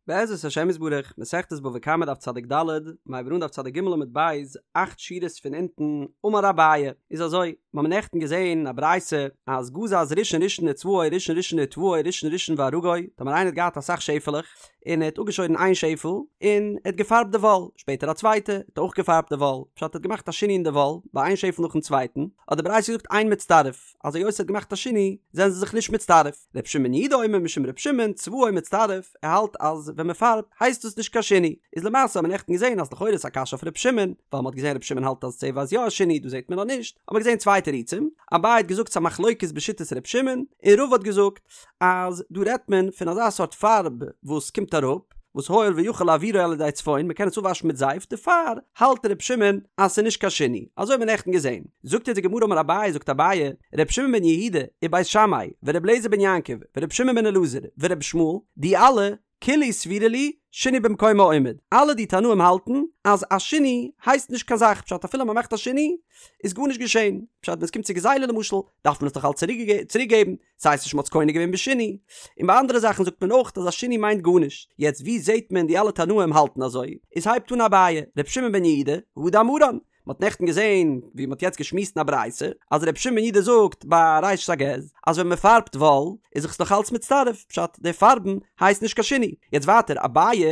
בעזרת השם יתברך, מסכת בבא קמא דף צדיק ד', מ'הייבט אן דף צדיק ג' עמוד ב', אכט שורות פון אונטן, אמר אביי, איז אזוי, מיר האבן נעכטן געזען א ברייתא אז גזז ראשון ראשון וצבעו ראשון ראשון וטוואו ראשון ראשון וארגו, טאמער איינער האט געהאט אסאך שעפעלעך, און ער האט אפגעשוירן איין שעפעל, און ער האט געפארבט די וואל, שפעטער א צווייטע, האט ער אויך געפארבט די וואל, פשט ער האט געמאכט א שינוי אין די וואל, ביי איין שעפעל נאכן צווייטן, האט די ברייתא געזאגט אין מצטרף. אז היות ער האט געמאכט א שינוי זענען זיי זיך נישט מצטרף. ר' שמעון בן יהודה אומר משום ר' שמעון צבעו מצטרף, ער האלט אז ווען מען פארבט הייסט דאס נישט קיין שינוי. איז למעשה האט מען נעכטן געזען אז לכאורה איז א קשיא אויף ר' שמעון, ווייל מען האט געזען ר' שמעון האלט אז צבע איז יא א שינוי דא זעט מען אז נישט, האט מען געזען צוויי תירוצים, אביי האט געזאגט ס'א מחלוקת בשיטת ר' שמעון, און רבא האט געזאגט אז דא רעדט מען פון אזא סארט פארב וואס קומט אראפ, וואס הואיל ויכול להעבירו על ידי צפון, מ'קען עס אפוואשן מיט זייף, דערפאר האלט ר' שמעון אז ס'איז נישט קיין שינוי, אזוי האט מען נעכטן געזען. זאגט אונז די גמרא אמר אביי זאגט אביי, ר' שמעון בן יהודה, ובית שמאי, ור' אליעזר בן יעקב, ור' שמעון בן אלעזר, ור' ישמעאל, די אלע, כולהו סבירא להו, שינוי במקומו עומד. אלע די תנאים האלטן אז א שינוי הייסט נישט קיין זאך, פשט אפילו מ'מאכט א שינוי איז גארנישט געשען, פשט ווען עס קומט צו גזילה למשל דארף מען עס דאך אלץ צוריק געבן, ס'הייסט נישט מ'האט עס קונה געווען בשינוי. און ביי אנדערע זאכן זאגט מען אויך אז א שינוי מיינט גארנישט. יעצט ווי זעהט מען די אלע תנאים האלטן אזוי? איז הייבט אן אביי, ר' שמעון בן יהודה, הא דאמרן, מ'האט נעכטן געזעהן ווי מ'האט יעצט געשמועסט אין א ברייתא אז ר' שמעון בן יהודה זאגט ביי ראשית הגז אז ווען מ'פארבט וואל איז זיך עס נאך אלץ מצטרף, פשט די פארבן הייסט נישט קיין שינוי. יעצט ווייטער אביי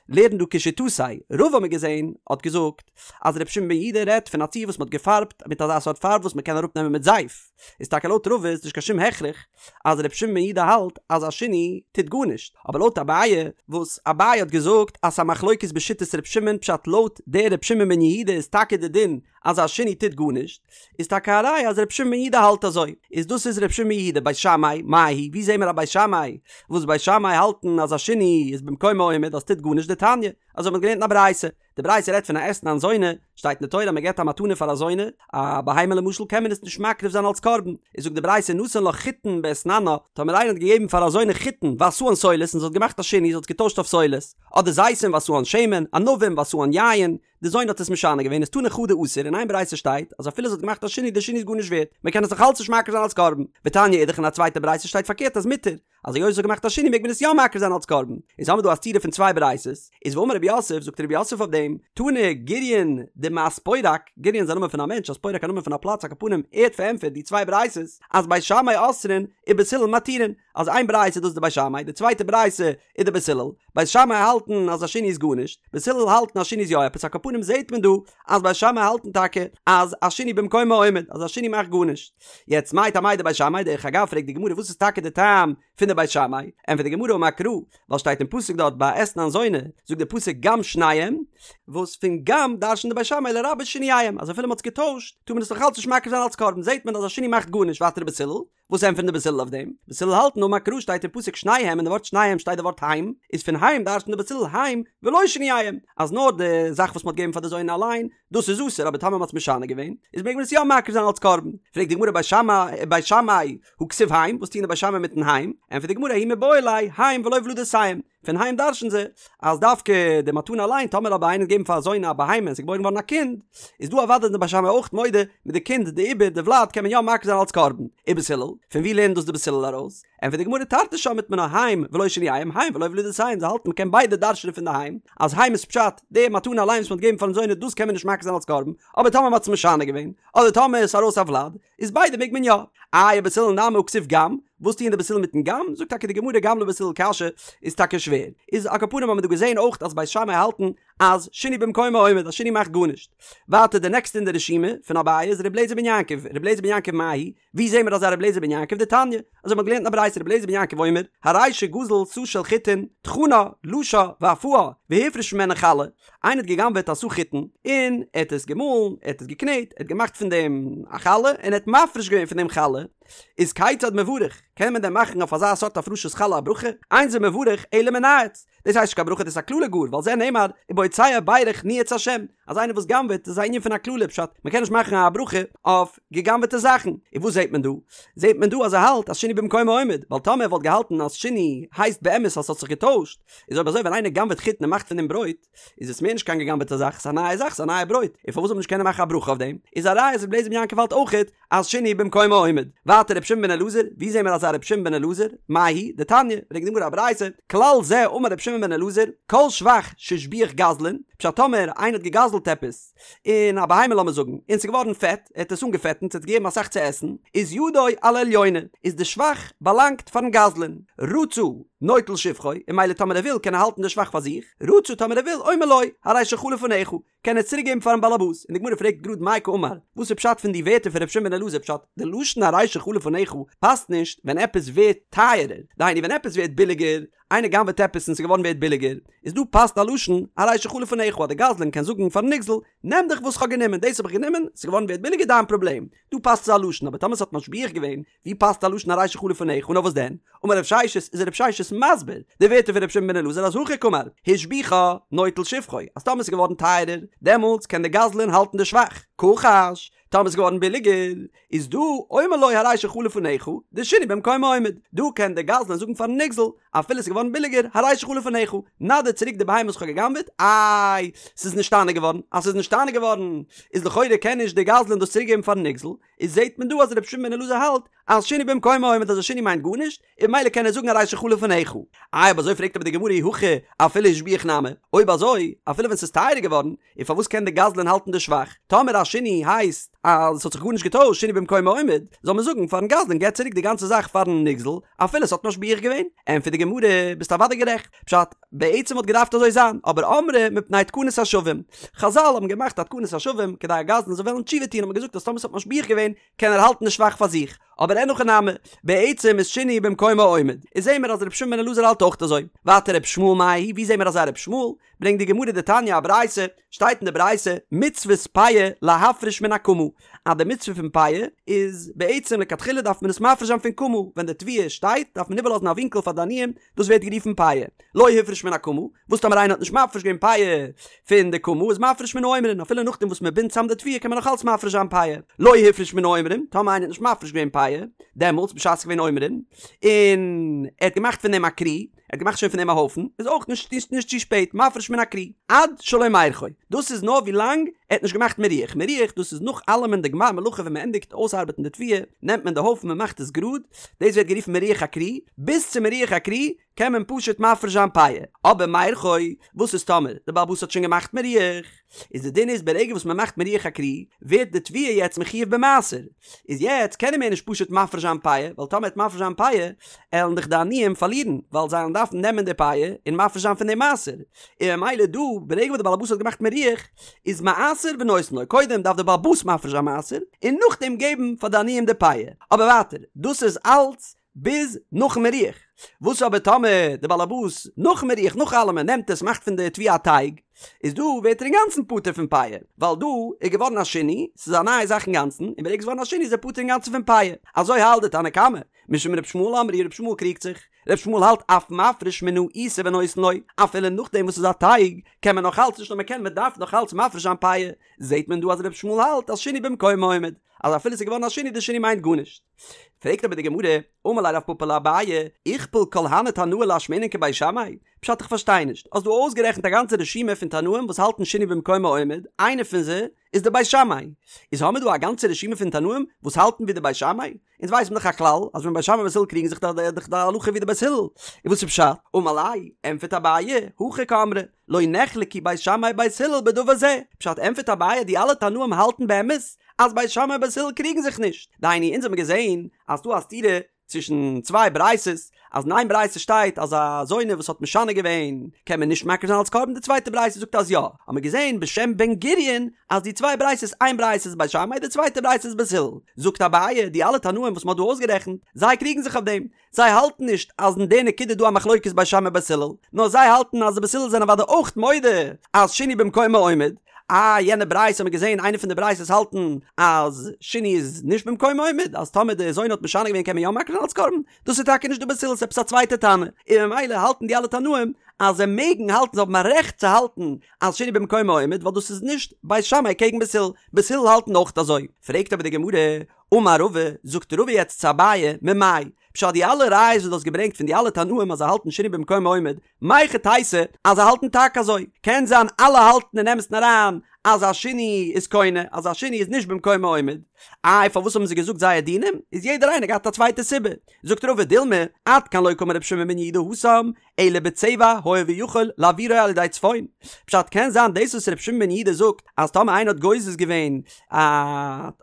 לערנט דא כשיטתיה, רבא האט מען געזעהן האט געזאגט אז ר' שמעון בן יהודה רעדט פון א ציור וואס מ'האט געפארבט מיט אזא סארט פארב וואס מ'קען אראפנעמען מיט זייף. איז טאקע לויט רבא איז נישט קיין שום הכרח אז ר' שמעון בן יהודה האלט אז א שינוי טוט גארנישט, אבער לויט אביי וואס אביי האט געזאגט אז ס'א מחלוקת בשיטת ר' שמעון פשט לויט דער ר' שמעון בן יהודה איז טאקע די דין אז א שינוי טוט גארנישט, איז טאקע א ראיה אז ר' שמעון בן יהודה האלט אזוי, איז דאס איז ר' שמעון בן יהודה בית שמאי, מאי היא, ווי זעהן מיר א בית שמאי וואס בית שמאי האלטן אז א שינוי איז במקומו עומד אז ס'טוט גארנישט דתניא, אזוי האט מען געלערנט אין א ברייתא. די ברייתא רעדט פון א אתנן זונה, שטייט אין די תורה אז מען געבט א מתנה פאר א זונה, א בהמה למשל קען מען עס נישט מקריב זיין אלס קרבן, איז זאגט די ברייתא נתן לה חיטין באתננה, טאמער איינער האט געגעבן פאר א זונה חיטין ועשאן סולת און זי האט געמאכט א שינוי זי האט עס געטוישט אויף סולת, אדער זיתים ועשאן שמן, ענבים ועשאן יין, די זונה האט עס משנה געווען איז תני חדא אסור, אין איין ברייתא שטייט אז אפילו זי האט געמאכט א שינוי די שינוי איז גארנישט ווערט, מען קען עס נאך אלץ נישט מקריב זיין אלס קרבן, ותניא אידך אין א צווייטע ברייתא שטייט פארקערט אז מותר, אז היות זי האט געמאכט א שינוי מעג מען עס יא מקריב זיין אלס קרבן, איז האמיר דא א סתירה פון צוויי ברייתות, איז ואמר רב יוסף, זאגט רב יוסף אויף דעם, תני גוריון דמאספורק, גוריון איז א נאמען פון א מענטש, אספורק א נאמען פון א פלאץ, על כל פנים ער האט פארענטפערט די צוויי ברייתות, אז בית שמאי אוסרין ובית הלל מתירין, אז איין ברייתא איז דאס די בית שמאי, די צווייטע ברייתא איז די בית הלל, בית שמאי האלטן אז א שינוי איז גארנישט, בית הלל האלטן אז שינוי איז יא עפעס, על כל פנים זעט מען דא אז בית שמאי האלטן טאקע אז א שינוי במקומו עומד, אז א שינוי מאכט גארנישט. יעצט מאי טעמייהו דבית שמאי, דרך אגב פרעגט די גמרא וואס איז טאקע די טעם פון די בית שמאי, ענטפערט די גמרא אמר קרא, ווייל שטייט אין פסוק דארט ביי אתנן זונה, זאגט די פסוק גם שניהם, וואס פון גם דרש'נט די בית שמאי לרבות שינוייהם, אז אפילו מען האט עס געטוישט טאר מען עס נאך אלץ נישט מקריב זיין אלץ קרבן, זעט מען אז א שינוי מאכט גארנישט, ווייטער בית הלל, וואס ענטפערן די בית הלל אויף דעם? בית הלל האלטן אמר קרא שטייט אין פסוק שניהם אין די ווארט שניהם שטייט די ווארט הם, איז פון הם דרש'נט די בית הלל הם ולא שינוייהם, אז נאר די זאך וואס מ'האט געגעבן פאר די זונה אליין, דאס איז אסור אבער טאמער מ'האט עס משנה געווען, איז מעג מען עס יא מקריב זיין אלץ קרבן. פרעגט די גמרא בית שמאי בית שמאי הא כתיב הם, וואס טוען די בית שמאי מיטן הם? ענטפערט די גמרא ההוא מיבעי ליה הם ולא ולדותיהם, פון הם דרש'ן זיי אז דווקא די מתנה אליין, טאמער אבער איינער האט געגעבן פאר א זונה א בהמה און ס'איז געבוירן געווארן א קינד, איז דא אוודאי די בית שמאי אויך מודה מיט די קינד די עובר די ולד קען מען יא מקריב זיין אלץ קרבן. ובית הלל, פון ווי לערנט דאס די בית הלל ארויס? ענטפערט די גמרא תרתי שמעת מינה הם ולא שינוייהם הם ולא ולדותיהם זיי האלטן מ'קען ביידע דרש'נען פון די הם אז הם איז פשט די מתנה אליין וואס מ'האט געגעבן פארן זונה דאס קען מען נישט מקריב זיין אלץ קרבן אבער טאמער מ'האט עס משנה געווען אדער טאמער איז ארויס א ולד איז ביידע מעג מען יא. איי ובית הלל נמי הא כתיב גם, וואס טוען די בית הלל מיטן גם? זאגט טאקע די גמרא גם לבית הלל קשיא איז טאקע שווער. איז על כל פנים האבן מיר דא געזען אויך אז בית שמאי האלטן אז שינוי במקומו עומד אז שינוי מאכט גארנישט. ווייטער די נעקסטע אין די רשימה פון אביי איז ר' אליעזר בן יעקב, ר' אליעזר בן יעקב מאי היא? ווי זעהן מיר אזא ר' אליעזר בן יעקב דתניא? אזוי מ'האט געלערנט אין א ברייתא ר' אליעזר בן יעקב אומר, הרי שגזל סאה של חיטין, טחנה, לשה, ואפאה, והפריש ממנה חלה, איינער האט גע'גנב'עט א סאה חיטין, און ער האט עס געמאלן, ער האט עס געקנעט, ער האט געמאכט פון דעם א חלה, און ער האט מפריש געווען פון דעם חלה, איז כיצד מברך, קען מען דען מאכן אויף אזא סארט הפרשת חלה א ברכה? אין זה מברך אלא מנאץ, דאס הייסט נישט קיין ברכה דאס איז א קללה גאר, ועל זה נאמר, ובו. בהוצא בירך ניאץ השם, אז איינער וואס גנב'עט איז א ענין פון א קללה פשט מ'קען נישט מאכן א ברכה אויף געגנב'עטע זאכן, און וואס זעט מען דא? זעט מען דא אז ער האלט אז שינוי במקומו עומד, ווייל טאמער ער וואלט געהאלטן אז שינוי הייסט באמת אז ס'האט זיך געטוישט, איז אויב אזוי ווען איינער גנב'עט חיטן און מאכט פון דעם ברויט, איז עס מער נישט קיין געגנב'עטע זאך, ס'איז א נייע זאך, ס'איז א נייע ברויט, און פארוואס זאל מען נישט קענען מאכן א ברכה אויף דעם? איז א ראיה אז רבי אליעזר בן יעקב האלט אויכעט אז שינוי במקומו עומד. ווייטער רבי שמעון בן אלעזר, ווי זעהן מיר אזא רבי שמעון בן אלעזר? מאי היא? דתניא, ברענגט די גמרא א ברייתא, כלל זה אמר רבי שמעון בן אלעזר, כל שבח שהשביח גזלן, פשט טאמער איינער האט געגזלט עפעס, און א בהמה לאמיר זאגן, און ס'איז געווארן פעט, ער האט עס אנגעפעטנט, ס'האט געגעבן אסאך צו עסן, איז ידו על העליונה, איז די שבח באלאנגט פארן גזלן, רצה נוטל שבחו, און ממילא טאמער ער וויל קען ער האלטן די שבח פאר זיך, רצה טאמער ער וויל אומר לו, הרי שלך לפניך, קען ער צוריק געבן פארן באלעבאס, און די גמרא פרעגט גראד מאי קאמר, וואס איז פשט פון די ווערטער פון ר' שמעון בן אלעזר פשט, די לשון הרי שלך לפניך פאסט נישט ווען עפעס ווערט טייערער, דהיינו ווען עפעס ווערט ביליגער, איינער גנב'עט עפעס און ס'איז געווארן ווערט ביליגער, איז דא פאסט א לשון הרי שלך לפניך אז די גזלן קען זאגן פארן נגזל, נעם דיך וואס כ'האב גענומען, דאס האב איך גענומען, ס'איז געווארן ווערט ביליגער דיין פראבלעם, דא פאסט אזא לשון, אבער טאמער ס'האט משביח געווען, ווי פאסט א לשון הרי שלך לפניך נאר וואס דען? אמר רב ששת איז רב ששת מסביר די ווערטער פון רבי שמעון בן אלעזר אז הכי קאמר השביחה נוטל שבחו אז טאמער ס'איז געווארן טייערער דעמאלטס קען די גזלן האלטן די שבח כחש טאמער ס'איז געווארן ביליגער איז דא אומר לו הרי שלך לפניך דשינוי במקומו עומד דא קען די גזלן זאגן פארן נגזל אפילו ס'איז געווארן ביליגער הרי שלך לפניך נא דיר צוריק די בהמה וואס כ'האב גע'גנב'עט איי ס'איז נשתנה געווארן אז ס'איז נשתנה געווארן איז לכאורה קען נישט די גזלן דאס צוריק געבן פארן נגזל איז זעהט מען דא אז רבי שמעון בן אלעזר האלט אז שינוי במקומו עומד אז א שינוי מיינט גארנישט און ממילא קען ער זאגן הרי שלך לפניך. איי אויב אזוי פרעגט אבער די גמרא אי הכי אפילו השביח נמי, אויב אזוי אפילו ווען ס'איז טייערער געווארן, און פארוואס קען די גזלן האלטן די שבח? טאמער א שינוי הייסט אז ס'האט זיך גארנישט געטוישט שינוי במקומו עומד, זאל מען זאגן פארן גזלן געב צוריק די גאנצע זאך פארן נגזל אפילו ס'האט משביח געווען? ענטפערט די גמרא ביסט אוודאי גערעכט, פשט, בעצם וואלט געדארפט אזוי זיין, אבער אמרי מפני תקנת השבים. חזל האבן געמאכט א תקנת השבים כדי א גזלן זאל וועלן תשובה טון האט מען געזאגט אז טאמער ס'האט משביח געווען קען ער האלטן די שבח פאר זיך, אבער אין הכי נמי, בעצם איז שינוי במקומו עומד. איז זעהן מיר אז רבי שמעון בן אלעזר האלט אויך אזוי. ווייטער רבי ישמעאל מאי היא, ווי זעהן מיר אזא רבי ישמעאל? ברענגט די גמרא דתניא א ברייתא, שטייט אין די ברייתא, מצוות פאה להפריש מן הקמה, אז די מצוה פון פאה איז בעצם לכתחילה דארף מען עס מפריש זיין פון קמה, ווען די תבואה שטייט דארף מען איבערלאזן א ווינקל פאר די עניים, דאס ווערט גערופן פאה. לא הפריש מן הקמה, וואס טאמער איינער האט נישט מפריש געווען פאה פון די קמה איז מפריש מן העומרין, אפילו נאכדעם וואס מען בינדט צאם די תבואה קען מען נאך אלץ מפריש זיין פאה. לא הפריש מן העומרין, טאמער איינער האט נישט מפריש געווען פאה, דעמאלטס בשעת ס'איז געווען עומרין, און ער האט געמאכט פון דעם א כרי, ער האט געמאכט שוין פון דעם א הויפן, איז אויך נישט נישט צו שפעט, מפריש מן הכרי, עד שלא מירחו, דאס איז נאר ווי לאנג ער האט נישט געמאכט מירוח, מירוח דאס איז נאך אלעמען די גמר מלאכה ווען מען ענדיגט אויסארבעטן די תבואה, נעמט מען די הויפן מען מאכט עס גראד, דאס ווערט גערופן מירוח הכרי, ביז צו מירוח הכרי קען מען פשוט מפריש זיין פאה, אבער מירחו, וואס איז טאמער די בעל הבית האט שוין געמאכט מירוח, איז די דין איז ברגע וואס מען מאכט מירוח הכרי ווערט די תבואה יעצט מחויב במעשר, איז יעצט קען ער מער נישט פשוט מפריש זיין פאה, ווייל טאמער ער וועט מפריש זיין פאה עלן דאך די עניים פארלירן, ווייל זיי עלן דארפן נעמען די פאה און מפריש זיין פון די מעשר, און ממילא דא ברגע וואס די בעל הבית האט געמאכט מירוח איז מעשר ונותן לו, קודם דארף די בעל הבית מפריש זיין מעשר און נאכדעם געבן פאר די עניים די פאה, אבער ווייטער דאס איז אלץ ביז נאכן מירוח. וואס אבער טאמער די באלעבאס נאכן מירוח נאך אלעמען נעמט עס מאכט פון די תבואה א טייג, איז דא ווערט ער אינגאנצן פטור פון פאה, ווייל דא איז געווארן א שינוי, ס'איז א נייע זאך אינגאנצן, און ברגע ס'איז געווארן א שינוי איז ער פטור אינגאנצן פון פאה. אזוי האלט די תנא קמא. משום ר' ישמעאל אמרו ר' ישמעאל קריגט זיך. ר' ישמעאל האלט אף מפריש מן העיסה ונותן לו, אפילו נאכדעם וואס ס'איז א טייג, קען מען נאך אלץ, נישט נאר מ'קען, מ'דארף נאך אלץ מפריש זיין פאה. זעט מען דא אז ר' ישמעאל האלט אז שינוי במקומו עומד, אז אפילו ס'איז געווארן א שינוי די שינוי מיינט גארנישט. פרעגט אבער די גמרא, אמר ליה רב פפא לאביי, איכפל כל הני תנאי לאשמועינן כבית שמאי? פשט איך פארשטיי נישט, האסט דא אויסגערעכנט א גאנצע רשימה פון תנאים וואס האלטן שינוי במקומו עומד, איינער פון זיי איז די בית שמאי, איז האמיר דא א גאנצע רשימה פון תנאים וואס האלטן ווי די בית שמאי? אונז ווייסן דאך א כלל אז ווען בית שמאי ובית הלל קריגן זיך איז דאך די הלכה ווי די בית הלל, און וואס איז פשט? אמר ליה, ענטפערט אביי, הכי קאמרי, לא נחלקו בית שמאי ובית הלל בדבר זה, פשט ענטפערט אביי די אלע תנאים האלטן באמת אז בית שמאי ובית הלל קריגן זיך נישט, דהיינו אונז האבן געזען אז ס'דא א סתירה צווישן צוויי ברייתות, אז אין איין ברייתא שטייט אז א זונה וואס האט משנה געווען קען מען נישט מקריב זיין אלס קרבן די צווייטע ברייתא זאגט אז יא, האבן מיר געזען בשם בן גוריון אז די צוויי ברייתות איין ברייתא איז בית שמאי די צווייטע ברייתא איז בית הלל, זאגט אביי די אלע תנאים וואס מען האט דא אויסגערעכנט זיי קריגן זיך אויף דעם, זיי האלטן נישט אז אין די נקודה איז דא א מחלוקת בית שמאי בית הלל, נאר זיי האלטן אז די בית הלל זענען אוודאי אויך מודה אז שינוי במקומו עומד, אה יענע ברייתא האט מען געזען איינע פון די ברייתות האלטן אז שינוי איז נישט במקומו עומד אז טאמער די זונה האט משנה געווען קען מען יא מקריב זיין אלס קרבן, דאס איז טאקע נישט די בית הלל ס'איז עפעס א צווייטע תנא, און ממילא האלטן די אלע תנאים אז זיי מעגן האלטן זיי האבן א רעכט צו האלטן אז שינוי במקומו עומד ווייל דאס איז נישט בית שמאי קעגן בית הלל, בית הלל האלטן אויך אזוי. פרעגט אבער די גמרא, אמר רבא, זאגט רבא יעצט צו אביי, ממאי? פשט די אלע ראיות וואס דו האסט געברענגט פון די אלע תנאים אז זיי האלטן שינוי במקומו עומד, מהיכי תיתי אז זיי האלטן טאקע אזוי? קען זיין אלע האלטן אין אמת'ן אריין אז א שינוי איז קונה, אז א שינוי איז נישט במקומו עומד. איי פארוואס האבן זיי געזאגט זייער דינים? איז יעדער איינער געהאט א צווייטע סיבה. זאגט רבא דילמא, עד כאן לא קאמר רבי שמעון בן יהודה התם, אלא בצבע הואיל ויכול להעבירו על ידי צפון. פשט קען זיין דאס וואס רבי שמעון בן יהודה זאגט אז טאמער איינער האט גוזז געווען א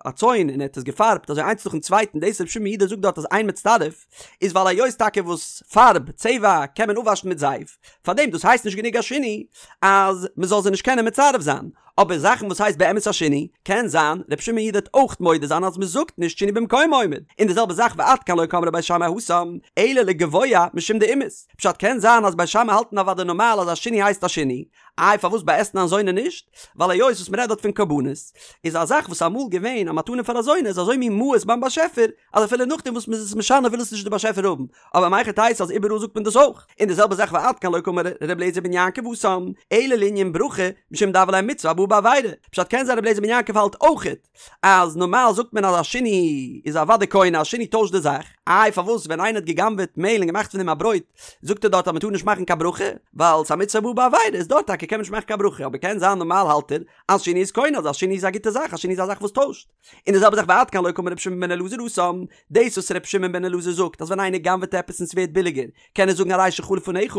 א צאן און ער האט עס געפארבט אזוי איינס נאכן צווייטן דאס רבי שמעון בן יהודה זאגט דארט אז אין מצטרף איז ווייל היות טאקע וואס פארב, צבע, קען מען אפוואשן מיט זייף, פארדעם דאס הייסט נישט גענוג א שינוי אז מען זאל זיי נישט קענען מצרף זיין. אבער זאכן וואס הייסט באמת א שינוי, קען זיין ר' שמעון בן יהודה וועט אויך מודה זיין אז מען זאגט נישט שינוי במקומו עומד, און די זעלבע זאך ועד כאן לא קאמרי בית שמאי התם, אלא לגבוה משום דאימאיס, פשט קען זיין אז בית שמאי האלטן אוודאי נארמאל אז א שינוי הייסט א שינוי, איי פארוואס ביי אתנן זונה נישט? ווייל היות וואס מען רעדט דארט פון קרבנות, איז א זאך וואס אמאל געווען א מתנה פאר א זונה איז אזוי מין מאוס ביים באשעפער, אז אפילו נאכדעם וואס מען איז עס משנה וויל עס נישט די באשעפער האבן, אבער מהיכי תיתי אז איבעראל זאגט מען דאס אויך, און די זעלבע זאך ועד כאן לא קאמר ר' אליעזר בן יעקב התם, אלא לענין ברכה, משום דהוה ליה מצוה הבאה בעבירה, פשט קען זיין ר' אליעזר בן יעקב האלט אויכעט אז נארמאל זאגט מען אז א שינוי איז אוודאי קונה א שינוי טוישט די זאך, איי פארוואס ווען איינער האט גע'גנב'עט מעהל און געמאכט פון דעם א ברויט זאגט ער דארט אז מען טאר נישט מאכן קיין ברכה, ווייל ס'איז א מצוה הבאה בעבירה איז דארט טאקע קען מען נישט מאכן קיין ברכה אבער קען זיין נארמאל האלט ער אז שינוי איז קונה אז א שינוי איז א גוטע זאך א שינוי איז א זאך וואס טוישט. און די זעלבע זאך ועד כאן לא קאמר רבי שמעון בן אלעזר התם, דאס וואס רבי שמעון בן אלעזר זאגט אז ווען איינער גנב'עט עפעס און ס'ווערט ביליגער קען ער זאגן הרי שלך לפניך,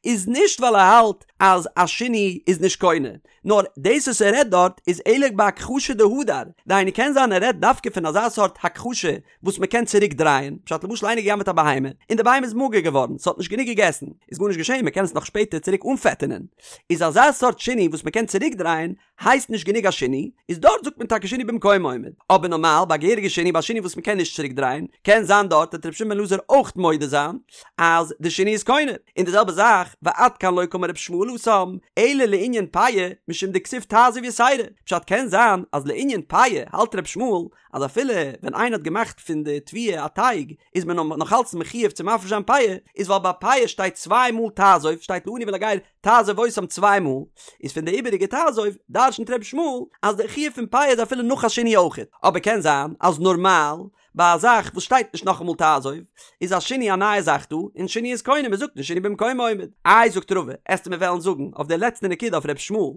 איז נישט ווייל ער האלט אז א שינוי איז נישט קונה, נאר דאס וואס ער רעדט דארט איז אלא בהכחשה דהדר, דהיינו קען זיין ער רעדט דווקא פון אזא סארט הכחשה וואס מ'קען צוריק דרייען, פשט למשל איינער געגנב'עט א בהמה און די בהמה איז מאגער געווארן ס'האט נישט גענוג געגעסן, איז גארנישט געשען מ'קען עס נאך שפעטער צוריק אנפעטענען, איז אזא סארט שינוי וואס מ'קען צוריק דרייען הייסט נישט גענוג א שינוי, איז דארט זאגט מען טאקע שינוי במקומו עומד, אבער נארמאל ביי א געהעריגע שינוי ביי א שינוי וואס מען קען נישט צוריק דרייען, קען זיין דארט וועט רבי שמעון בן אלעזר אויך מודה זיין אז די שינוי איז קונה, און די זעלבע זאך ועד כאן לא קאמר רבי ישמעאל התם, אלא לענין פאה משום דכתיב תעזוב יתירה, פשט קען זיין אז לענין פאה האלט רבי ישמעאל אז אפילו ווען איינער האט געמאכט פון די תבואה א טייג איז מען נאך אלץ מחויב צו מפריש זיין פאה, איז ווייל ביי פאה שטייט צוויי מאל תעזוב שטייט לעני ולגר תעזוב אותם צוויי מאל, איז פון די איבעריגע תעזוב דרשנ'ט ר' ישמעאל אז די חיוב פון פאה איז אפילו נאך א שינוי אויכעט, אבער קען זיין אז נארמאל ביי א זאך וואס שטייט נישט נאכאמאל תעזוב איז א שינוי א נייע זאך דא, און שינוי איז קונה, מ'זאגט נישט שינוי במקומו עומד. איי זאגט רבא, עסטו מיר וועלן זאגן אויף די לעצטע נקודה אויף ר' ישמעאל,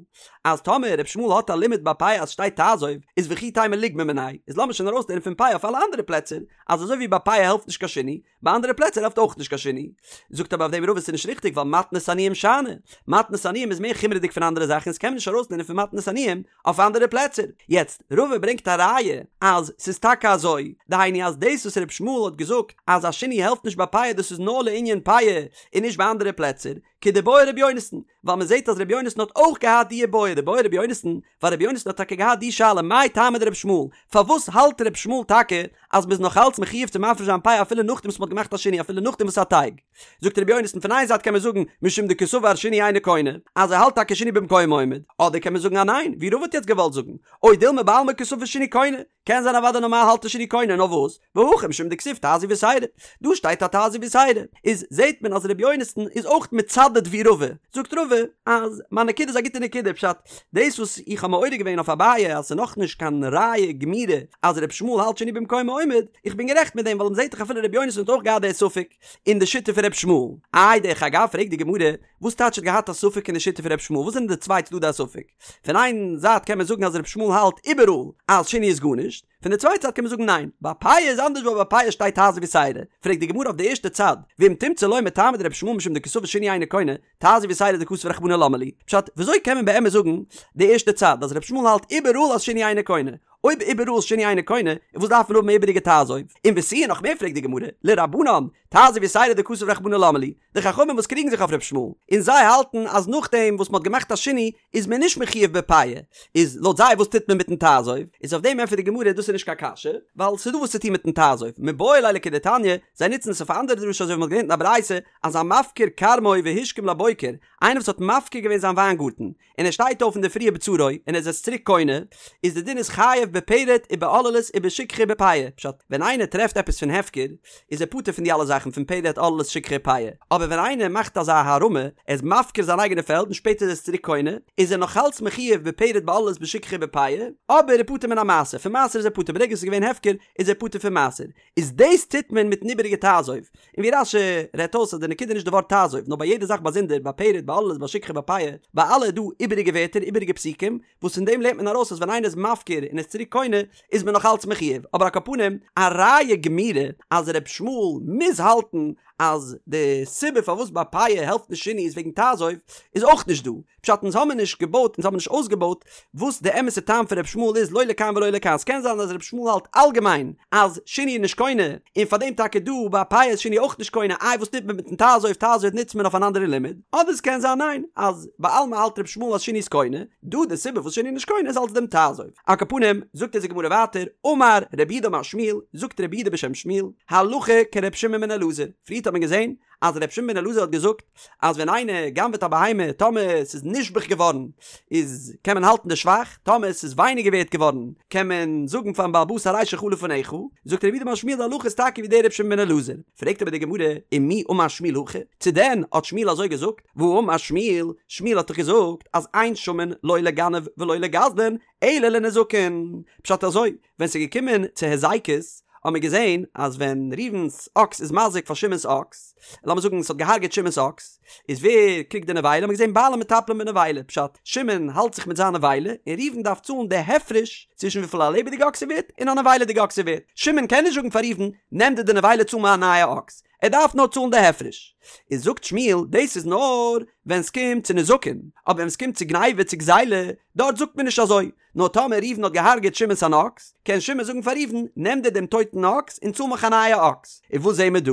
אז טאמער ר' ישמעאל האט א לימוד ביי פאה אז שטייט תעזוב, איז וכי תימא ליגמר מיניה, איז לאמיר שוין ארויסלערנען פון פאה אויף אלע אנדערע פלעצער, אז אזוי ווי ביי פאה העלפט נישט קיין שינוי, ביי אנדערע פלעצער העלפט אויך נישט קיין שינוי. זאגט אבער אויף דעם רבא ס'איז נישט ריכטיג ווייל מתנות עניים שאני. מתנות עניים איז מער חומרה'דיג פון אנדערע זאכן איז קען מען נישט ארויסלערנען פון מתנות עניים אויף אנדערע פלעצער. יעצט, רבא ברענגט א ראיה אז ס'איז טאקע אזוי, דהיינו אז דאס וואס ר' ישמעאל האט געזאגט אז א שינוי העלפט נישט ביי פאה דאס איז נאר לענין פאה און נישט ביי אנדערע פלעצער, כדבעי ר' יונתן, ווייל מען זעט אז ר' יונתן האט אויך געהאט די בעיא, דבעי ר' יונתן, ווייל ר' יונתן האט טאקע געהאט די שאלה מאי טעמא דר' ישמעאל, פארוואס האלט ר' ישמעאל טאקע אז מ'איז נאך אלץ מחויב צו מפריש זיין פאה אפילו נאכדעם וואס מ'האט געמאכט א שינוי אפילו נאכדעם וואס ס'איז א טייג? זאגט ר' יונתן פון איין זייט קען מען זאגן משום דקסבר שינוי אינו קונה, אז ער האלט טאקע שינוי במקומו עומד, אדער קען מען זאגן אז ניין, ווי רבא האט יעצט געוואלט זאגן, או דילמא בעלמא קסבר שינוי קונה, קען זיין אוודאי נארמאל האלט ער שינוי קונה נאר וואס והכא משום דכתיב תעזוב יתירה דא שטייט א תעזוב יתירה איז זעהט מען אז ר' יונתן איז אויך מצדד ווי רבא זאגט רבא אז מיין נקודה איז א גוטע נקודה פשט דאס וואס איך האב מעורר געווען אויף אביי אז ס'איז נאכנישט קיין ראיה גמירה אז ר' ישמעאל האלט שינוי במקומו עומד איך בין גערעכט מיט דעם ווייל מ'זעהט דאך אפילו ר' יונתן האט אויך געהאט די ספק אין די שיטה פון ר' ישמעאל איי דרך אגב פרעגט די גמרא וואס טייטש האט געהאט א ספק אין די שיטה פון ר' ישמעאל וואס זענען די צוויי צדדי הספק פון איין זייט קען מען זאגן אז ר' ישמעאל האלט איבעראל אז שינוי איז גארנישט, פון די צווייטע זייט קען מען זאגן ניין, ביי פאה איז אנדערש ווייל ביי פאה שטייט תעזוב יתירה, פרעגט די גמרא אויף די ערשטע צד, ואם תמצא לומר טעמא דר' ישמעאל משום דקסבר שינוי אינו קונה, תעזוב יתירה דכתב רחמנא למה לי, פשט, וויאזוי קען מען באמת זאגן די ערשטע צד אז ר' ישמעאל האלט איבעראל אז שינוי אינו קונה? אויב איבעראל איז שינוי אינו קונה, איז וואס דארף מען האבן איבעריגע תעזוב? און ותו נאך מער פרעגט די גמרא, לרבנן, תעזוב יתירא דכתב רחמנא למה לי, די חכמים וואס קריגן זיך אויף ר' ישמעאל, און זיי האלטן אז נאכדעם וואס מ'האט געמאכט א שינוי איז מען נישט מחויב בפאה, איז לויט זיי וואס טוט מען מיטן תעזוב? איז אויף דעם ענטפערט די גמרא דאס איז נישט קיין קשיא, ווייל ס'איז דא וואס צו טון מיטן תעזוב, מיבעי ליה לכדתניא, זיי נוצן עס אויף א אנדערע דרשה אזוי ווי מ'האט געלערנט אין א ברייתא אז המפקיר כרמו והשכים לבוקר, איינער וואס האט מפקיר געווען זיין וויינגארטן, און ער שטייט אויף אינדערפרי ובצרו און ער איז עס צוריק קונה, איז די דין איז חייב בפרט ובעוללות ובשכחה ובפאה, פשט, ווען איינער טרעפט עפעס פון הפקר, איז ער פטור פון די אלע זאכן פון פרט עוללות שכחה פאה, אבער ווען איינער מאכט אזא הערמה, ער איז מפקיר זיין אייגענע פעלד און שפעטער איז ער עס צוריק קונה, איז ער נאכאלץ מחויב בפרט בעוללות בשכחה ובפאה, אבער ער איז פטור מן המעשר, פון מעשר איז ער פטור, ברגע עס איז געווען הפקר איז ער פטור פון מעשר, איז דאס טוט מען מיטן איבעריגע תעזוב, און ווי רש"י רעדט אויס אז די נקודה איז נישט די ווארט תעזוב, נאר ביי יעדע זאך באזונדער, ביי פרט, ביי עוללות, ביי שכחה, ביי פאה, ביי אלע איז דא איבעריגע ווערטער, איבעריגע פסוקים, וואס פון דעם לערנט מען ארויס אז ווען איינער איז מפקיר און איז צוריק קונה, איז מען נאך אלץ מחויב, אבער על כל פנים, א ראיה גמירה אז ר' ישמעאל מוז האלטן אז די סיבה פארוואס ביי פאה העלפט נישט שינוי איז וועגן תעזוב, איז אויך נישט דא. פשט אונז האמיר נישט געבויט אונז האמיר נישט אויסגעבויט וואס די אמת'ע טעם פון ר' ישמעאל איז לא לכאן ולא לכאן ס'קען זיין אז ר' ישמעאל האלט אלגעמיין אז שינוי איז נישט קונה און פארדעם טאקע דא ביי פאה איז שינוי אויך נישט קונה איי וואס טוט מען מיטן תעזוב תעזוב נוצט מען אויף אן אנדערע לימוד אדער ס'קען זיין ניין אז בעלמא האלט ר' ישמעאל אז שינוי איז קונה דא די סיבה וואס שינוי איז נישט קונה איז אלס דעם תעזוב על כל פנים זאגט אונז די גמרא ווייטער אמר רב יהודה אמר שמואל זאגט רב יהודה בשם שמואל הלכה כר' שמעון בן אלעזר פריערט האט מען געזען אז ר' שמעון בן אלעזר האט געזאגט אז ווען איינער גנב'עט א בהמה טאמער ס'איז נשבח געווארן איז קען מען האלטן די שבח, טאמער ס'איז ווייניגער ווערט געווארן קען מען זאגן פארן בעל הבית הרי שלך לפניך, זאגט רב יהודה אמר שמואל די הלכה איז טאקע ווי דער ר' שמעון בן אלעזר, פרעגט אבער די גמרא ומי אמר שמואל הכי, צו דען האט שמואל אזוי געזאגט, והאמר שמואל, שמואל האט דאך געזאגט אז אין שמין לא לגנב ולא לגזלן אלא לנזקין, פשט אזוי, ווען ס'איז געקומען צו היזקות האט מען געזען אז ווען ראובן'ס אקס איז מזיק פאר שמעון'ס אקס, לאמיר זאגן ס'האט געהארגעט שמעון'ס אקס, איז ווער קריגט די נבילה? האט מען געזען בעלים מטפלין בנבילה, פשט, שמעון האלט זיך מיט זיין נבילה, און ראובן דארף צאלן די הפרש צווישן וויפיל א לעבעדיגע אקס איז ווערט און א נבילה'דיגע אקס איז ווערט. שמעון קען נישט זאגן פאר ראובן, נעם דיר די נבילה צאל מיר א נייע אקס, ער דארף נאר צאלן די הפרש. איז זאגט שמואל, דאס איז נאר ווען ס'קומט צו נזקין, אבער ווען ס'קומט צו גניבה צו גזילה, דארט זאגט מען נישט אזוי, נאר טאמער ראובן האט געהארגעט שמעון'ס אן אקס, קען שמעון זאגן פאר ראובן, נעם דיר דעם טויטן אקס און צאל מיך א נייע אקס. און וואס זעהן מיר דא?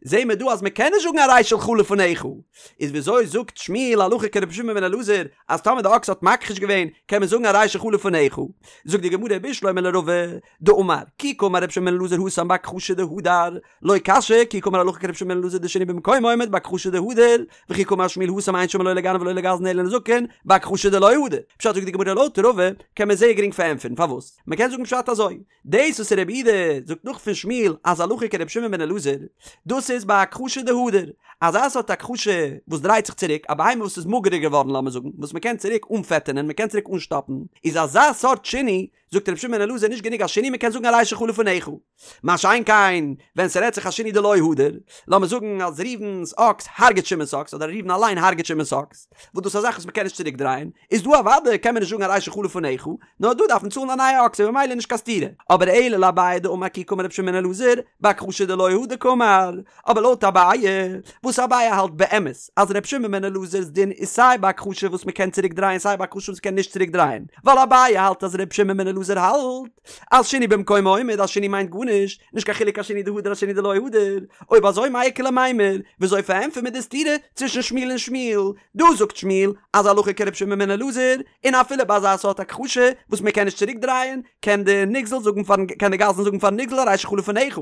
זעהן מיר דא אז מען קען נישט זאגן הרי שלך לפניך. איז וויאזוי זאגט שמואל הלכה כרבי שמעון בן אלעזר אז טאמער די אקס האט מכחיש געווען קען מען זאגן הרי שלך לפניך? זאגט די גמרא בשלמא לרבא דאמר כי קאמר רבי שמעון בן אלעזר התם בהכחשה דהדר, לא קשיא כי קאמר הלכה כרבי שמעון בן אלעזר דשינוי במקומו עומד בהכחשה דהדר, וכי קאמר שמואל התם אין שמין לא לגנב ולא לגזלן אלא לנזקין, בהכחשה דלא הדר. פשט זאגט די גמרא לויט רבא קען מען זייער גרינג פארענטפערן פארוואס מען קען זאגן פשט אזוי, דאס וואס רב יהודה זאגט נאך פון שמואל אז הלכה כרבי שמעון בן אלעזר, דאס איז בהכחשה דהדר, אזא סארט הכחשה וואס דרייט זיך צוריק, א בהמה וואס איז מאגערער געווארן לאמיר זאגן, וואס מען קען צוריק אנפעטענען, מען קען צוריק אנשטאפן, איז אזא סארט שינוי זאגט רבי שמעון בן אלעזר נישט גענוג א שינוי מען קען זאגן הרי שלך לפניך. מה שאין כן ווען ס'רעדט זיך א שינוי דלא הדר, לאמיר זאגן אז ראובן'ס אקס הרג'ט שמעון'ס אקס אדער ראובן אליין הרג'ט שמעון'ס אקס, וואס דאס איז א זאך וואס מ'קען נישט צוריק דרייען, איז דא אוודאי קען מען נישט זאגן הרי שלך לפניך, נאר דא דארף מען צאלן א נייע אקס און ממילא נישט קיין סתירה. אבער אלא לאביי דאמר כי קאמר רבי שמעון בן אלעזר, בהכחשה דלא הדר קאמר. אבער לויט אביי, וואס אביי האלט באמת אז ר' שמעון בן אלעזר'ס דין איז סיי בהכחשה וואס מ'קען צוריק דרייען סיי בהכחשה וואס מ'קען נישט צוריק דרייען, ווייל אביי האלט אז ר' שמעון בן אלעזר האלט אז שינוי במקומו עומד אז שינוי מיינט גארנישט, נישט קיין חילוק א שינוי דהדר א שינוי דלא הדר, אויב אזוי מאי איכא למימר, וויאזוי פארענטפערט מען די סתירה צווישן שמואל און שמואל? דא זאגט שמואל אז הלכה כר' שמעון בן אלעזר, און אפילו ביי אזא סארט הכחשה וואס מען קען נישט צוריק דרייען, קען די נגזל זאגן פארן קען די גזלן זאגן פארן נגזל הרי שלך לפניך,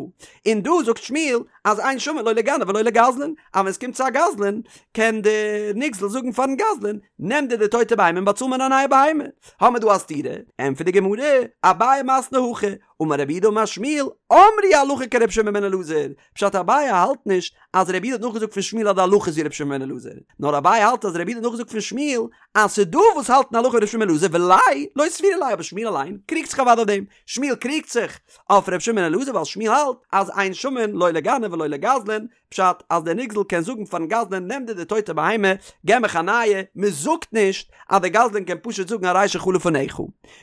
און דא זאגט שמואל אז אין שמין לא לגנב ולא לגזלן, אז ווען עס קומט צו א גזלן קען די נגזל זאגן פארן גזלן נעם דיר די טויטע בהמה און באצאל מיר א נייע בהמה, האמיר דא א סתירה, ענטפערט די גמרא, אביי מתני הכי, אמר רב יהודה אמר שמואל, אמרו הלכה כרבי שמעון בן אלעזר, פשט אביי האלט נישט אז רב יהודה האט נאכגעזאגט פון שמואל אז די הלכה איז ווי רבי שמעון בן אלעזר, נאר אביי האלט אז רב יהודה האט נאכגעזאגט פון שמואל אז ס'דא וואס האלטן הלכה ווי רבי שמעון בן אלעזר וליה לא סבירא ליה אבער שמואל אליין קריגט זיך אוודאי אויף דעם, שמואל קריגט זיך אויף רבי שמעון בן אלעזר ווייל שמואל האלט אז אין שמין לא לגנב ולא לגזלן, פשט אז דער נגזל קען זאגן פארן גזלן נעם דיר די טויטע בהמה געב מיך א נייע, מען זאגט נישט אז דער גזלן קען פשוט זאגן הרי שלך לפניך.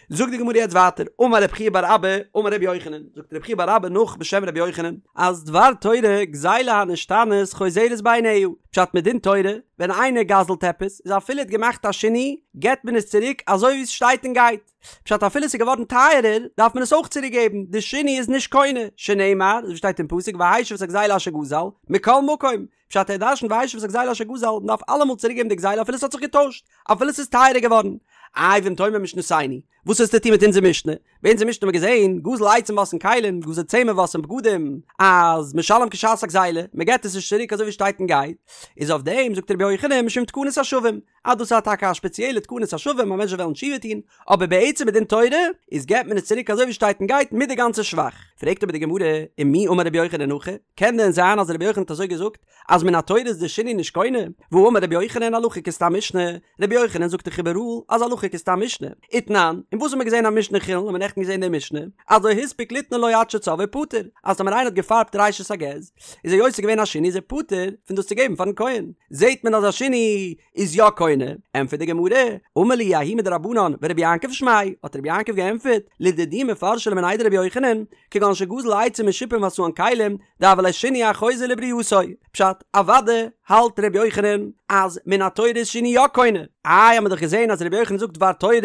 זאגט די גמרא יעצט ווייטער, אמר רב חייא בר אבא, אמר אמר רבי יוחנן, זאגט רבי חייא בר אבא נאך בשם רבי יוחנן, אז דבר תורה גזילה הנשתנית חוזרת בעיניה, פשט מדין תורה, ווען איינער גזל'ט עפעס, איז אפילו ער האט געמאכט א שינוי, געבט מען עס צוריק אזוי ווי עס שטייט און גייט. פשט אפילו עס איז געווארן טייערער, דארף מען עס אויך צוריק געבן, די שינוי איז נישט קונה, שנאמר, אזוי ווי שטייט אין פסוק והשיב את הגזילה אשר גזל, מכל מקום, פשט ער דרשנט והשיב את הגזילה אשר גזל, מען דארף אלעמאל צוריק געבן די גזילה אפילו עס האט זיך געטוישט, אפילו עס איז טייערער געווארן. איי ואם תאמר משנתנו, וואס האסטו טון מיט אונזער משנה? ביי אונזער משנה האבן מיר געזען, גזל עצים ועשאן כלים, גזל צמר ועשאן בגדים, אז משלם כשעת הגזילה, מען געבט עס נישט צוריק אזוי ווי שטייט און גייט, איז אויף דעם זאגט רבי יוחנן משום תקנת השבים, אז דאס איז טאקע א שפעציעלע תקנת השבים אז מענטשן וועלן תשובה טון, אבער בעצם מדין תורה איז געבט מען עס צוריק אזוי ווי שטייט און גייט מיט די גאנצע שבח. פרעגט אבער די גמרא, ומי אמר רבי יוחנן הכי, קען דען זיין אז רבי יוחנן האט אזוי געזאגט אז מן התורה איז די שינוי נישט קונה? והאמר רבי יוחנן הלכה כסתם משנה, רבי יוחנן זאגט דאך איבעראל אז הלכה כסתם משנה. ותנן, און וואס האט מען געזען א משנה חולין האט מען נעכטן געזען די משנה, אז לא הספיק ליתנו לו עד שצבעו פטור, אז טאמער איינער האט געפארבט ראשית הגז, איז ער יוצא געווען א שינוי איז ער פטור פון דאס צו געבן פארן כהן, זעט מען אז א שינוי איז יא קונה, ענטפערט די גמרא, אמר להו ההוא מדרבנן ורבי יעקב שמיה, האט רבי יעקב געענטפערט, לדידי מפרשא לי מיניה דרבי יוחנן, כגון שגזל עצים משופין ועשאן כלים, דהוה ליה שינוי החוזר לברייתו, פשט, אוודאי האלט רבי יוחנן אז מן התורה איז שינוי יא קונה, איי האמיר דאך געזען אז רבי יוחנן זאגט דבר תורה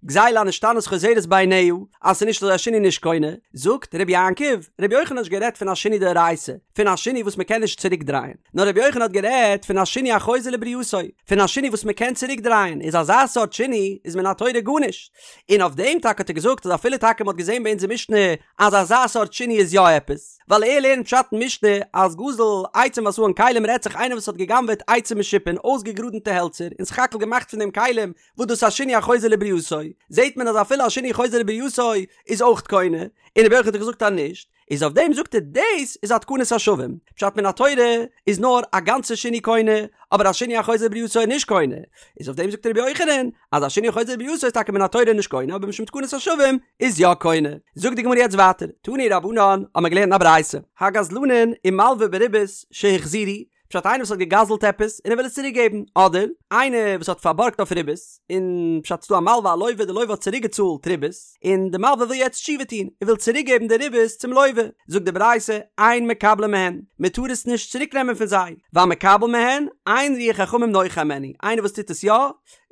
גזילה הנשתנית חוזרת בעיניה אז ס'איז נישט אזוי א שינוי נישט קונה, זאגט רבי יעקב, רבי יוחנן האט נישט גערעדט פון א שינוי דאורייתא, פון א שינוי וואס מ'קען נישט צוריק דרייען, נאר רבי יוחנן האט גערעדט פון א שינוי החוזר לברייתו, פון א שינוי וואס מ'קען צוריק דרייען, איז אזא סארט שינוי איז מן התורה גארנישט, און אויף דעם טאקע האט ער געזאגט אז אפילו טאקע מ'האט געזען ביי אונזער משנה אז אזא סארט שינוי איז יא עפעס, ווייל ער לערנט פשט אין משנה אז גזל עצים ועשאן כלים רעדט זיך איינער וואס האט גע'גנב'עט עצים משופין אויסגעגראדענטע העלצער און סך הכל געמאכט פון דעם כלים וואס דאס איז א שינוי החוזר לברייתו, זעהט מען אז אפילו א שינוי חוזר לברייתו איז אויך קונה, און רבי יוחנן האט געזאגט אז נישט, איז אויף דעם זאגט ער דאס איז א תקנת השבים, פשט מן התורה איז נאר א גאנצע שינוי קונה, אבער א שינוי החוזר לברייתו איז נישט קונה, איז אויף דעם זאגט רבי יוחנן אז א שינוי חוזר לברייתו איז טאקע מן התורה נישט קונה אבער משום תקנת השבים איז יא קונה. זאגט די גמרא יעצט ווייטער, תנו רבנן האבן מיר געלערנט אין א ברייתא, הגזלנין ומלוי בריבית שהחזירו, פשט איינער וואס האט געגזלט עפעס און ער וויל עס צוריק געבן, אדער איינער וואס האט פארבארגט אויף ריבית, און פשט ס'דא א מלווה א לוה די לוה האט צוריק געצאלט ריבית, און די מלווה וויל יעצט תשובה טון, ער וויל צוריק געבן די ריבית צום לוה, זאגט די ברייתא, אין מקבלין מהן, מען טאר עס נישט צוריק נעמען פון זיי, והמקבל מהן, אין רוח חכמים נוחה הימנו, איינער וואס טוט עס יא,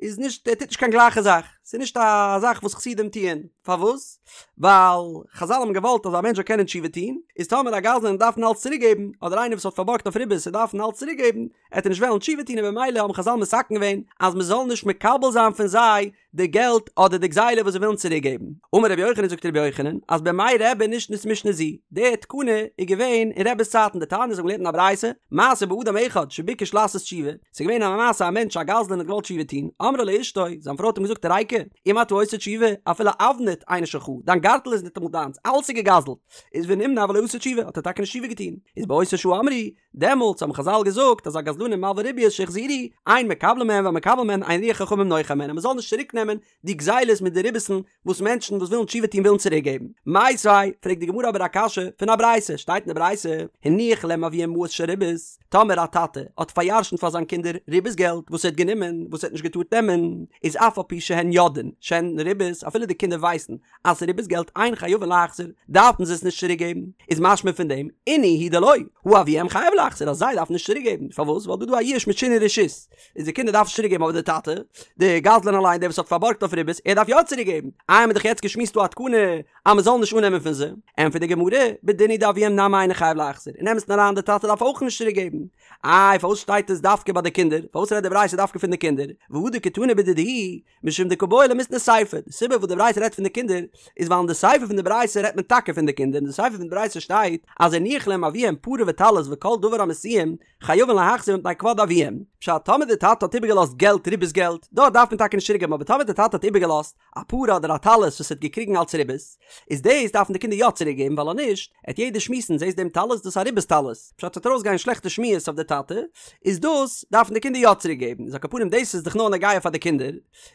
איז נישט ער טוט נישט קיין גלייכע זאך, ס'איז נישט א זאך וואס חסידים טוען, פארוואס? ווייל חזל האבן געוואלט אז א מענטש זאל קענען תשובה טון, איז טאמער א גזלן דארף אלץ צוריק געבן, אדער איינער וואס האט פארבארגט אויף ריבית און דארף אלץ צוריק געבן, עט ער נישט וועלן תשובה טון און במילא האבן חזל מתקן געווען אז מען זאל נישט מקבל זיין פון זיי די געלט אדער די גזילה וואס זיי ווילן צוריק געבן. אמר רבי יוחנן זאגט רבי יוחנן אז בימי רבי נשנית משנה זו, די תקנה איז געווען אין רבי'ס צייטן דתניא אזוי האבן געלערנט אין א ברייתא, מעשה באדם אחד שביקש לעשות תשובה, ס'איז געווען א מעשה א מענטש א גזלן האט געוואלט תשובה טון, אמרה לו אשתו, זיין פרוי האט אים געזאגט ריקא, אם אתה עושה תשובה, אפילו אבנט אינו שלך, דיין גארטל איז ניטאמאל דיינס, אלעס איז געגזלט, איז ונמנע ולא עשה תשובה, האט ער טאקע נישט תשובה געטון, איז באותה שעה אמרו, דעמאלטס האבן חזל געזאגט אז הגזלנים ומלוי ריביות שהחזירו, אין מקבלין מהן והמקבל מהן אין רוח חכמים נוחה הימנו, מ'זאל נישט צוריק נעמען די גזילות מיט די ריבית'ן וואס מענטשן וואס ווילן תשובה טון ווילן צוריק געבן. מיתיבי, פרעגט די גמרא אבער א קשיא פון א ברייתא, שטייט אין די ברייתא, הניח להם אביהם מעות של ריבית, טאמער א טאטע האט פאר'ירש'נט פאר זיין קינדער ריבית געלט וואס ער האט גענומען וואס ער האט נישט געטארט נעמען, איז אף על פי שהן יודעין שהן ריבית, אפילו די קינדער ווייסן אז ס'איז ריבית געלט אין חייבין להחזיר, דארפן זיי עס נישט צוריק געבן, איז משמע פון דעם, אינהו הוא דלא, הא אביהם חייב להחזיר אז זיי דארפן נישט צוריק געבן, פארוואס? ווייל דא איז דא א יאוש מיט שינוי רשות, איז די קינדער דארפן נישט צוריק געבן אבער די טאטע, די גזלן אליין דער וואס האט פארבארגט אויף ריבית, ער דארף יא צוריק געבן, איי האמיר דאך יעצט געשמועסט דא א תקנה אז מען זאל נישט אננעמען פון זיי, ענטפערט די גמרא, בדין הוא דאביהם נמי אינו חייב להחזיר, אין אמת'ן אריין די טאטע דארף אויך נישט צוריק געבן, איי פארוואס שטייט עס דווקא ביי די קינדער, פארוואס רעדט די ברייתא דווקא פון די קינדער, והא דקתני בדידהו, משום דקא בעי למיתני סיפא, די סיבה וואס די ברייתא רעדט פון די קינדער איז ווייל אין די סיפא פון די ברייתא רעדט מען טאקע פון די קינדער, אין די סיפא פון די ברייתא שטייט אז הניח להם אביהם פרה וטלית וכל דבר המסויים חייבין להחזיר מפני כבוד אביהם, פשט טאמער די טאטע האט איבערגעלאזט געלט ריבית געלט, דארט דארף מען טאקע נישט צוריק געבן אבער טאמער די טאטע האט איבערגעלאזט א פרה אדער א טלית וואס ער האט געקריגן אלץ ריבית, איז דאס דארפן די קינדער יא צוריק געבן ווייל אז נישט, עט יעדער שמועסן זעסט דעם טלית דאס איז א ריבית טלית, פשט ס'וועט ארויסגיין שלעכטע שמועות אויף אויף די טאטע, איז דאס דארפן די קינדער יא צוריק געבן, איז על כל פנים דאס איז דאך נאר נוגע פאר די קינדער,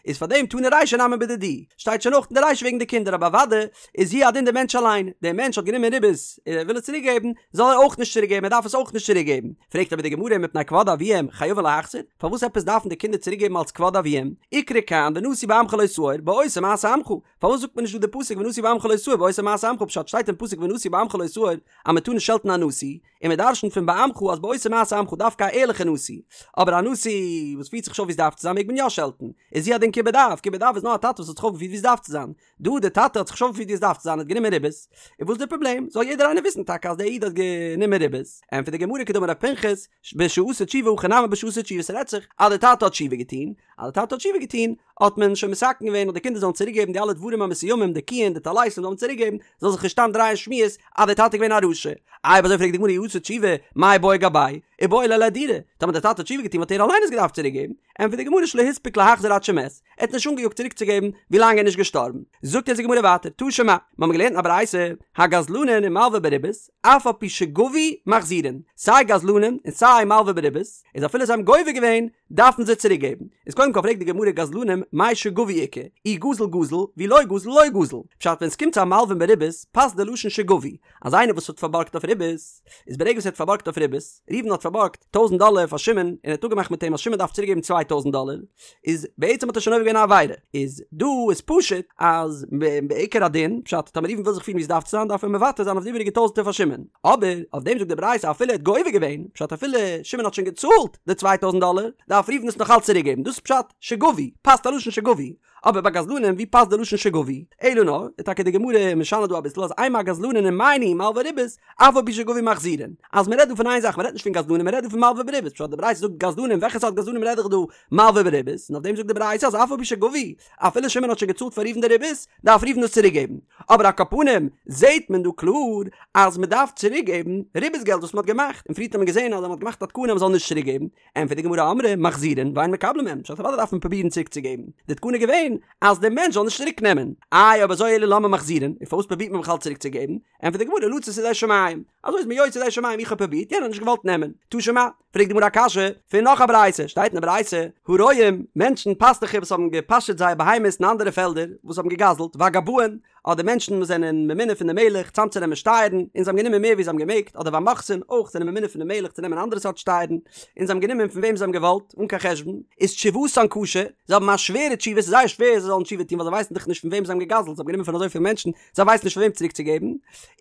איז פאר דעם תנא רישא נמי בדידהו, שטייט שוין אויך אין די רישא וועגן די קינדער אבער אוודאי איז הוא הדין די מענטש אליין, דער מענטש האט גענומען ריבית און ער וויל עס צוריק געבן, זאל ער אויך נישט צוריק געבן, ער דארף עס אויך נישט צוריק געבן, פרעגט אבער די גמרא מפני כבוד אביהם חייבין להחזיר, פארוואס עפעס דארפן די קינדער צוריק געבן אלס כבוד אביהם, איקרי כאן ונשיא בעמך לא תאור, בעושה מעשה עמך, פארוואס זאגט מען נישט דא די פסוק ונשיא בעמך לא תאור בעושה מעשה עמך פשט שטייט אין פסוק ונשיא בעמך לא תאור אז מען טאר נישט שעלטן א נשיא, און מען דרשנ'ט פון בעמך אז בעושה מעשה עמך דווקא א ערליכע נשיא, אבער א נשיא וואס פירט זיך נישט אויף ווי עס דארף צו זיין מעג מען יא שעלטן, איז הוא הדין כיבוד אב, כיבוד אב איז נאר א טאטע וואס האט זיך אויפגעפירט ווי עס דארף צו זיין, דא די טאטע האט זיך נישט אויפגעפירט ווי עס דארף צו זיין האט גענומען ריבית, און וואס איז די פראבלעם? זאל יעדער איינער וויסן טאקע אז דער איד האט גענומען ריבית, ענטפערט די גמרא כדאמר רב פנחס, בשעשה תשובה הכא נמי בשעשה תשובה ס'רעדט זיך אז די טאטע האט תשובה געטון, אז די טאטע האט תשובה געטון האט מען שוין מתקן געווען אז די קינדער זאלן צוריק געבן די אלע דברים המסוימים די קיען די טליתים זאל מען צוריק געבן זאל זיך נישט סתם דרייען שמועות אז די טאטע איז געווען א רשע. איי אויב אזוי פרעגט די גמרא אי עשה תשובה מאי בעי גביה איבעי ליה לאהדורי טאמער די טאטע האט תשובה געטון וואלט ער אליין עס געדארפט צוריק געבן, ענטפערט די גמרא שלא הספיק להחזיר עד שמת, ער האט נישט אנגעיאגט צוריק צו געבן ווי לאנג ער איז נישט געשטארבן. זאגט אונז די גמרא ווייטער תא שמע, מיר האבן געלערנט אין א ברייתא, הגזלנין ומלוה בריבית, אף על פי שגבו מחזירין, סיי גזלנים און סיי מלוה בריבית, איז אפילו זיי האבן גובה געווען, דארפן זיי צוריק געבן. איז קודם כל פרעגט די גמרא גזלנים מאי שגבו איכא, אי גזל גזל, ואי לא גזל לא גזל. פשט ווען ס'קומט צו א מלווה בריבית פאסט די לשון שגבו, אז איינער וואס האט פארבארגט אויף ריבית, איז ברגע וואס ער האט פארבארגט אויף ריבית, ראובן האט פארבארגט טויזנט דאלער פאר שמעון און ער האט אפגעמאכט מיט אים אז שמעון דארף צוריק געבן 2000 דאלער, איז בעצם האט ער שוין עובר געווען א עבירה, איז דא איז פשוט אז בעיקר הדין, פשט טאמער ראובן וויל זיך פירן ווי עס דארף צו זיין דארף ער מוותר זיין אויף די איבעריגע טויזנטער פאר שמעון, אבער אויף דעם זאגט די ברייתא אפילו ער האט גובה געווען, פשט אפילו שמעון האט שוין געצאלט די 2000 דאלער, דארף ראובן עס נאך אלץ צוריק געבן, דאס איז פשט שגבו, פאסט א לשון שגבו, אבער ביי גזלנים ווי פאסט די לשון שגבו? אלא נאר, איז טאקע די גמרא משנה דא אביסל אז אימא הגזלנין ומאי ניהו מלוי ריבית, אף על פי שגבו מחזירין. אז מ'רעדט דא פון איין זאך, מ'רעדט נישט פון גזלנים מ'רעדט דא פון מלוי בריבית, פשט די ברייתא זאגט גזלנים וועלכע סארט גזלנים רעד איך דא? מלוי בריבית, און אויף דעם זאגט די ברייתא אז אף על פי שגבו, אפילו שמעון האט שוין געצאלט פאר ראובן די ריבית, דארף ראובן עס צוריק געבן. אבער על כל פנים זעהט מען דא קלאר אז מ'דארף צוריק געבן ריבית געלט וואס מ'האט געמאכט, און פריערט האט מען געזעהן אז מ'האט געמאכט א תקנה אז מ'זאל נישט צוריק געבן, ענטפערט די גמרא אמרי מחזירין ואין מקבלין מהן, פשט אוודאי דארף מען פרובירן צוריק צו געבן, די תקנה איז געווען אז דער מענטש זאל נישט צוריק נעמען, איי אויב אזוי אלא למה מחזירין, און פארוואס פרובירט מען בכלל צוריק צו געבן, ענטפערט די גמרא לצאת ידי שמים, אזוי איז מען יוצא ידי שמים איך האב פרובירט יענער האט נישט געוואלט נעמען, תא שמע, פרעגט די גמרא א קשיא פון נאך א ברייתא, שטייט אין די ברייתא, הרועים, מענטשן פאסטוכער וואס האבן געפאשעט זייער בהמות אין אנדערע פעלדער, וואס האבן געגזלט, והגבאים, אדער מענטשן וואס זענען ממונה פון די מלך צאמצונעמען שטייערן, און זיי האבן גענומען מער ווי זיי האבן געמעגט, אדער והמוכסין, אויך זענען ממונה פון די מלך צו נעמען אנדערע סארט שטייערן, און זיי האבן גענומען פון וועם זיי האבן געוואלט, אן קיין חשבון, איז תשובתן קשה, זיי האבן א שווערע תשובה, ס'איז זייער שווער זיי זאלן תשובה טון ווייל זיי ווייסן דאך נישט פון וועם זיי האבן געגזלט, זיי האבן גענומען פון אזויפיל מענטשן, זיי ווייסן נישט פאר וועם צוריק צו געבן,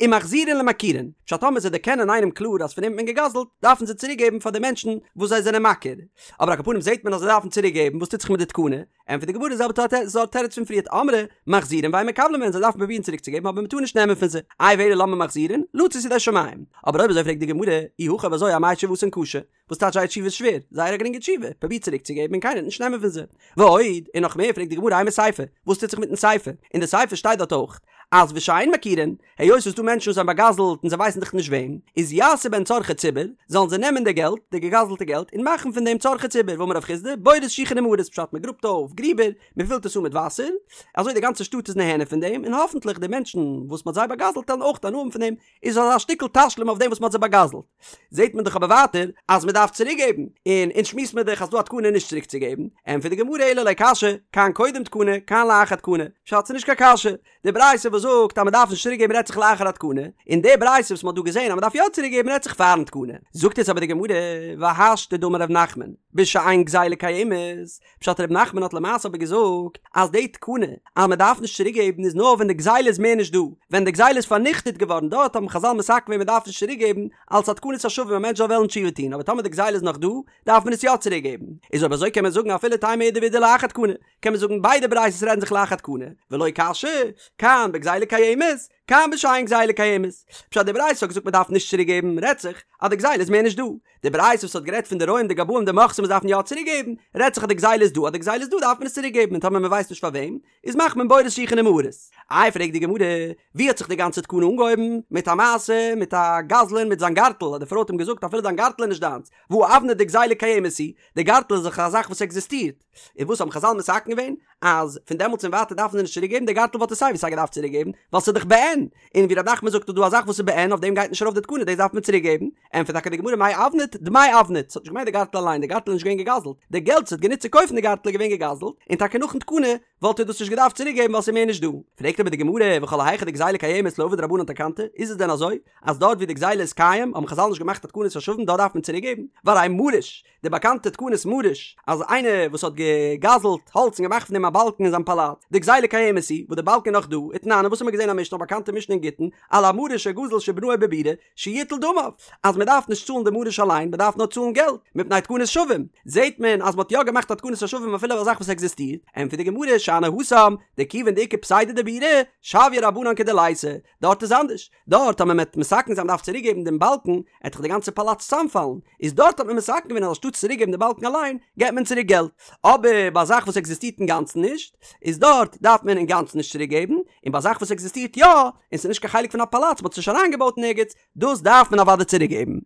ומחזירין למכירין, פשט טאמער זיי דערקענען איינעם קלאר אז פון אים האט מען געגזלט, דארפן זיי צוריק געבן פאר די מענטשן וואס זיי זענען מכיר, אבער על כל פנים זעט מען אז זיי דארפן צוריק געבן, וואס טוט זיך מיט די תקנה? ענטפערט די גמרא די זעלבע סארט תירוץ פון פריערט אמרי מחזירין ואין מקבלין מהן זיי דארפן פרובירן צוריק צו געבן אבער מען טאר נישט נעמען פון זיי איי ואלא למה מחזירין לצאת ידי שמים אבער אויב אזוי פרעגט די גמרא אי הכי אויב אזוי אמאי תשובתן קשה וואס טייטש זייער תשובה איז שווער זייער א גרינגע תשובה פרוביר צוריק צו געבן און קיינער וועט נישט נעמען פון זיי ועוד און נאך מער פרעגט די גמרא אימא סיפא וואס טוט זיך מיטן סיפא אין די סיפא שטייט דארט אויך אז ושאין מכירין היות ס'איז דא מענטשן וואס האבן באגזלט און זיי ווייסן דאך נישט וועם, איז יעשו בהן צרכי ציבור, זאלן זיי נעמען די געלט, די געגזלטע געלט, און מאכן פון דעם צרכי ציבור, ואמר רב חסדא, בורות שיחין ומערות, פשט מען גראבט אויף גריבער, מען פילט עס אן מיט וואסער, אזוי די גאנצע שטאט איז נהנה פון דעם, און האפנטליך די מענטשן וואס מען האט זיי באגזלט וועלן אויך הנאה האבן פון דעם, איז אזא שטיקל תשלום אויף דעם וואס מען האט זיי באגזלט. זעט מען דאך אבער ווייטער אז מען דארף צוריק געבן, און אונז שמועסט מען דאך אז ס'דא א תקנה נישט צוריק צו געבן, ענטפערט די גמרא אלא לא קשיא, כאן קודם תקנה, כאן לאחר תקנה, פשט ס'איז נישט קיין קשיא, די ברייתא וואס זאגט אז מען דארף נישט צוריק געבן רעדט זיך לאחר התקנה, און די ברייתא וואס מען האט דא געזען אז מען דארף יא צוריק געבן רעדט זיך פארן תקנה. זאגט יעצט אבער די גמרא, והשתא דאמר ר' נחמן, בשאין גזילה קיימת, פשט ר' נחמן האט למעשה אבער געזאגט אז די תקנה אז מען דארף נישט צוריק געבן איז נאר ווען די גזילה איז מער נישט דא, ווען די גזילה איז פארניכטעט געווארן דארט האבן חזל מתקן געווען מען דארף נישט צוריק געבן אלס א תקנת השבים א מענטש זאל וועלן תשובה טון, אבער טאמער די גזילה איז נאך דא דארף מען עס יא צוריק געבן, איז אויב אזוי קען מען זאגן אפילו תימא אידי ואידי לאחר תקנה, קען מען זאגן ביידע ברייתות רעדן זיך לאחר תקנה, ולא קשיא, כאן בגזילה קיימת, כאן בשאין גזילה קיימת. פשט די ברייתא האט געזאגט מען דארף נישט צוריק געבן, רעדט זיך אז די גזילה איז מער נישט דא. די ברייתא וואס האט גערעדט פון די רועים די גבאים די מוכסים וואס דארפן יא צוריק געבן, רעדט זיך אז די גזילה איז דא, אז די גזילה איז דא דארף מען עס צוריק געבן און טאמער מען ווייסט נישט פאר וועם, איז מאכט מען בורות שיחין ומערות. איי פרעגט די גמרא, ווי האט זיך די גאנצע תקנה אנגעהויבן? מיט א מעשה מיט א גזלן מיט זיין גארטל, אז די פרוי האט אים געזאגט אפילו דיין גארטל איז נישט דיינס, והא אבנט דגזילה קיימת היא, די גארטל איז דאך א זאך וואס עקזיסטירט. און וואס האבן חזל מתקן געווען? אז פון דעמאלטס און ווייטער דארפן זיי נישט צוריק געבן, די גארטל וואלט ער סיי ווי סיי געדארפט צוריק געבן, ווייל ס'איז דאך בעין, און ווי ר' נחמן זאגט איז דא א זאך וואס איז בעין אויף דעם גייט נישט ארויף די תקנה דאס דארף מען צוריק געבן, ענטפערט טאקע די גמרא מאי אבנט דמי אבנט, ס'האט נישט געמיינט די גארטל אליין, די גארטל איז נישט געווען געגזלט, די געלט וואס האט גענוצט צו קויפן די גארטל איז געווען געגזלט, און טאקע נאכן תקנה וואלט ער דאס נישט געדארפט צוריק געבן ווייל ס'איז מער נישט דא. פרעגט אבער די גמרא, וכל היכא דגזילה קיימת לא עבוד רבנן תקנתא, איז עס דען אזוי אז דארט ווי די גזילה איז קיים האבן חזל נישט געמאכט א תקנת השבים דארט דארף מען צוריק געבן? והרי מריש, די באקאנטע תקנת מריש, אז איינער וואס האט געגזלט האלץ און געמאכט פון דעם א באלקן אין זיין פאלאץ, דגזילה קיימת היא, וואס די באלקן איז נאך דא, ותנן, און וואס האט מען געזען א משנה, א באקאנטע משנה אין גיטין, על המריש שגזל שבנאו בבירה, שיטול דמיו, אז מען דארף נישט צאלן די מריש אליין, מען דארף נאר צאלן געלט, מפני תקנת שבים, זעט מען אז מען האט יא געמאכט א תקנת השבים אפילו אויף א זאך וואס עקזיסטירט, ענטפערט די גמרא, שאני התם, דכיון דאיכא פסידא דבירה, שויא רבנן כדליתא, דארט איז אנדערש, דארט אז מען וועט מתקן זיין מ'דארף צוריק געבן דעם באלקן, עט דאך די גאנצע פאלאץ צוזאמפאלן, איז דארט האט מען מתקן געווען אז אנשטאט צוריק געבן די באלקן אליין, געבט מען צוריק געלט, אבער ביי א זאך וואס עקזיסטירט אינגאנצן נישט, איז דארט דארף מען אינגאנצן נישט צוריק געבן, און ביי א זאך וואס עקזיסטירט יא, און ס'איז נישט קיין חלק פון א פאלאץ, מ'האט עס נישט אריינגעבויט אין ערגעץ, דאס דארף מען אוודאי צוריק געבן.